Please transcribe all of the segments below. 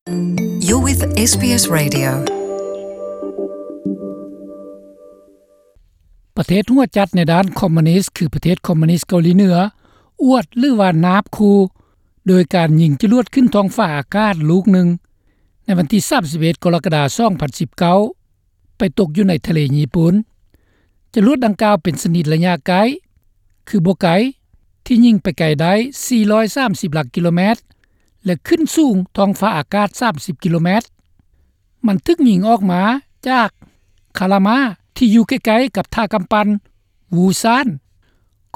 You're with ເອສ ບີ ເອສ Radio. ປະເທດຫົວຈັດໃນດ້ານຄອມມູນິດ ຄືປະເທດຄອມມູນິດເກົາຫຼີເໜືອ ອວດ ຫຼືວ່ານາບຂູ່ ໂດຍການຍິງຈະຫຼວດຂຶ້ນທ້ອງຟ້າອາກາດລູກໜຶ່ງ ໃນວັນທີສາມສິບເອັດ ກໍລະກະດາ ສອງພັນສິບເກົ້າ ໄປຕົກຢູ່ໃນທະເລຍີ່ປຸ່ນ. ຈະຫຼວດດັ່ງກ່າວເປັນຊະນິດໄລຍະໃກ້ ຄືບໍ່ໄກ ທີ່ຍິງໄປໄກໄດ້ ສີ່ຮ້ອຍສາມສິບຫຼັກກິໂລແມັດ ແລະ ຂຶ້ນສູງທ້ອງຟ້າອາກາດ ສາມສິບກິໂລແມັດ. ມັນຖືກຍິງອອກມາຈາກຄາລາມາ ທີ່ຢູ່ໃກ້ໆກັບທ່າກຳປັ່ນ ວູຊານ.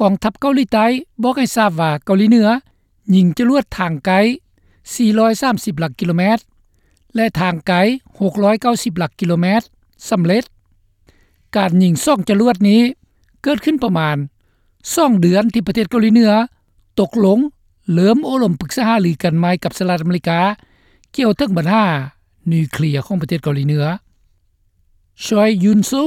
ກອງທັບເກົາຫຼີໃຕ້ບອກໃຫ້ຊາບວ່າເກົາຫຼີເໜືອຍິງຈະຫຼວດທາງໃກ້ ສີ່ຮ້ອຍສາມສິບຫຼັກກິໂລແມັດ ແລະ ທາງໄກ ຫົກຮ້ອຍເກົ້າສິບຫຼັກກິໂລແມັດ ສຳເລັດ. ການຍິງສອງຈະຫຼວດນີ້ເກີດຂຶ້ນປະມານສອງເດືອນ ທີ່ປະເທດເກົາຫຼີເໜືອຕົກລົງເລີ່ມໂອ້ລົມປຶກສາຫາລືກັນໃໝ່ກັບສະຫະລັດອາເມລິກາ ກ່ຽວເຖິງບັນຫານິວເຄລຍຂອງປະເທດເກົາຫຼີເໜືອ. ຊອຍ ຢຸນຊູ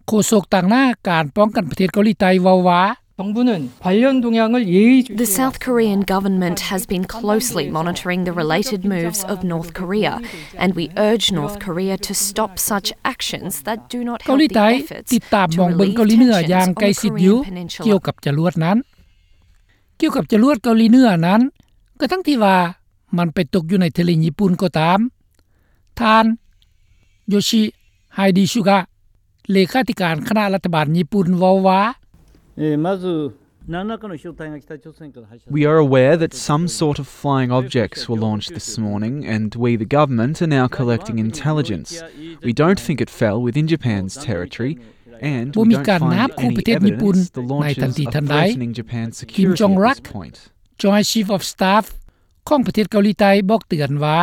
ໂຄສົກຕາງໜ້າການປ້ອງກັນປະເທດເກົາຫຼີໃຕ້ເວົ້າວ່າ 정부는 관련 동향을 예의주시하고 The South Korean government has been closely monitoring the related moves of North Korea, and we urge North Korea to stop such actions that do not ເກົາຫຼີໃຕ້ help the efforts ຕິດຕາມມອງເບິ່ງເກົາຫຼີເໜືອຢ່າງໃກ້ຊິດຢູ່ to relieve tensions on the Korean peninsula. ກ່ຽວກັບຈະຫຼວດນັ້ນ ກ່ຽວກັບຈະຫຼວດເກົາຫຼີເໜືອນັ້ນ ກະທັງທີ່ວ່າມັນໄປຕົກຢູ່ໃນທະເລຍີ່ປຸ່ນກໍຕາມ, ທ່ານ ໂຢຊິ ໄຮດີຊູກະ ເລຂາທິການຄະນະລັດຖະບານຍີ່ປຸ່ນເວົ້າວ່າ We are aware that some sort of flying objects were launched this morning, and we, the government, are now collecting intelligence. We don't think it fell within Japan's territory, and we don't find any evidence the launches are threatening Japan's security at this point. Joint Chief of Staff ຂອງປະເທດເກົາຫຼີໃຕ້ບອກເຕືອນວ່າ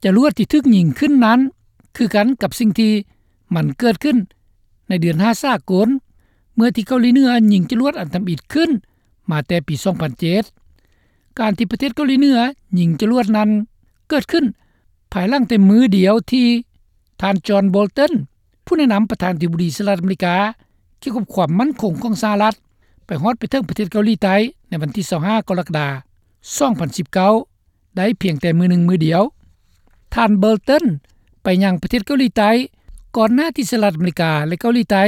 ຈະຫຼວດທີ່ຖືກຍິງຂຶ້ນນັ້ນ ຄືກັນກັບສິ່ງທີ່ມັນເກີດຂຶ້ນໃນເດືອນຫ້າສາກົນ ເມື່ອທີ່ເກົາຫຼີເໜືອຍິງຈະຫຼວດອັນທຳອິດຂຶ້ນມາແຕ່ປີສອງພັນເຈັດ. ການທີ່ປະເທດເກົາຫຼີເໜືອຍິງຈະຫຼວດນັ້ນເກີດຂຶ້ນ ພາຍຫຼັງແຕ່ມື້ດຽວທີ່ທ່ານ ຈອນ ໂບລຕັນ ຜູ້ແນະນຳປະທານາທິບໍດີສະຫະລັດອາເມລິກາ ກ່ຽວກັບຄວາມໝັ້ນຄົງຂອງສະຫະລັດ ໄປຮອດໄປເຖິງປະເທດເກົາຫຼີໃຕ້ໃນວັນທີຊາວຫ້າ ກໍລະກະດາ ສອງພັນສິບເກົ້າ ໄດ້ພຽງແຕ່ມື້ໜຶ່ງມື້ດຽວ. ທ່ານ ໂບລຕັນ ໄປຍັງປະເທດເກົາຫຼີໃຕ້ ກ່ອນໜ້າທີ່ສະຫະລັດອາເມລິກາ ແລະ ເກົາຫຼີໃຕ້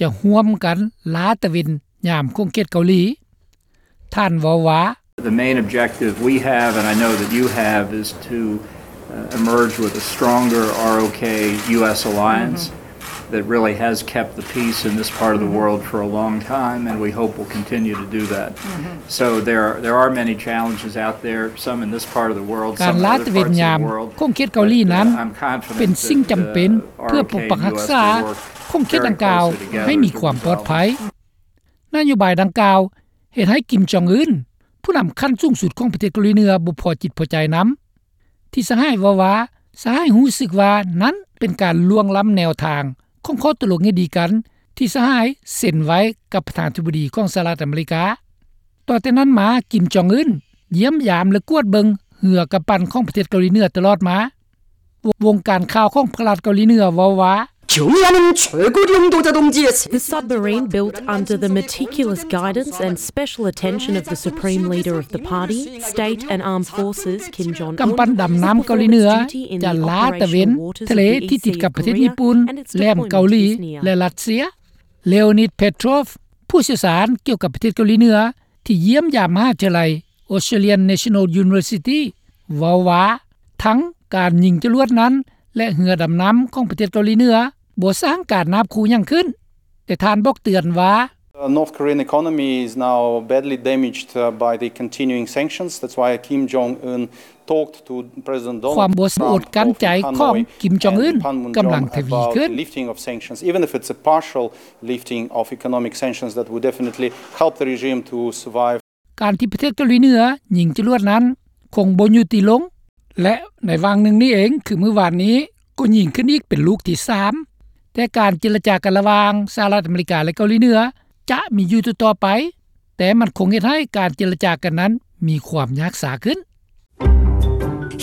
ຈະຮ່ວມກັນລາຕະເວັນຍາມຂົງເຂດເກົາຫຼີ. ທ່ານເວົ້າວ່າ The main objective we have, and I know that you have, is to, uh, emerge with a stronger R O K U S alliance that really has kept the peace in this part of the world for a long time, and we hope will continue to do that. So there are, there are many challenges out there, some in this part of the world, some in other parts of the world, ການລາຕະເວັນຍາມຂົງເຂດເກົາຫຼີນັ້ນ ເປັນສິ່ງຈຳເປັນເພື່ອປົກປັກຮັກສາຂົງເຂດດັ່ງກ່າວໃຫ້ມີຄວາມປອດໄພ. ນະໂຍບາຍດັ່ງກ່າວເຮັດໃຫ້ ກິມ ຈອງອຶນ ຜູ້ນຳຂັ້ນສູງສຸດຂອງປະເທດເກົາຫຼີເໜືອ ບໍ່ພໍຈິດພໍໃຈນຳ ທີ່ສະຫາຍເວົ້າວ່າ ສະຫາຍຮູ້ສຶກວ່ານັ້ນເປັນການລ່ວງລ້ຳແນວທາງຂອງຂໍ້ຕົກລົງທີ່ດີກັນ ທີ່ສະຫາຍເຊັນໄວ້ກັບປະທານາທິບໍດີຂອງສະຫະລັດອາເມລິກາ. ຕໍ່ແຕ່ນັ້ນມາ ກິມ ຈອງອຶນ ຢ້ຽມຢາມ ແລະ ກວດເບິ່ງເຮືອກຳປັ່ນຂອງປະເທດເກົາຫຼີເໜືອຕະຫຼອດມາ. ວົງການຂ່າວຂອງພະລັດເກົາຫຼີເໜືອເວົ້າວ່າ The submarine, built under the meticulous guidance and special attention of the supreme leader of the party, state and armed forces, Kim Jong Un, ກຳປັ່ນດຳນ້ຳເກົາຫຼີເໜືອ ຈະລາຕະເວັນທະເລທີ່ຕິດກັບປະເທດຍີ່ປຸ່ນ ແຫຼມເກົາຫຼີ ແລະ ຣັດເຊຍ. ເລໂອນິດ ເພໂທຣຟ ຜູ້ຊ່ຽວຊານກ່ຽວກັບປະເທດເກົາຫຼີເໜືອ ທີ່ຢ້ຽມຢາມມະຫາວິທະຍາໄລ Australian National University ເວົ້າວ່າ ທັງການຍິງຈະຫຼວດນັ້ນ ແລະ ເຮືອດຳນ້ຳຂອງປະເທດເກົາຫຼີເໜືອ ບໍ່ສ້າງການນາບຂູ່ຫຍັງຂຶ້ນ, ແຕ່ທ່ານບອກເຕືອນວ່າ North Korean economy is now badly damaged, uh, by the continuing sanctions. That's why Kim Jong Un talked to President Donald Trump both in Hanoi and Panmunjom about the lifting of sanctions, even if it's a partial lifting of economic sanctions that would definitely help the regime to survive. ການທີ່ປະເທດເກົາຫຼີເໜືອຍິງຈະຫຼວດນັ້ນຄົງບໍ່ຢຸດຕິລົງ ແລະ ໃນຫວ່າງໜຶ່ງນີ້ເອງ ຄືມື້ວານນີ້ກໍຍິງຂຶ້ນອີກເປັນລູກທີສາມ. ແຕ່ການເຈລະຈາກັນລະຫວ່າງສະຫະລັດອາເມລິກາ ແລະ ເກົາຫຼີເໜືອຈະມີຢູ່ຕໍ່ໆໄປ, ແຕ່ມັນຄົງເຮັດໃຫ້ການເຈລະຈາກັນນັ້ນມີຄວາມຍາກຊ້າຂຶ້ນ.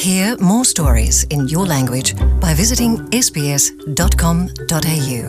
Hear more stories in your language by visiting S B S dot com dot A U.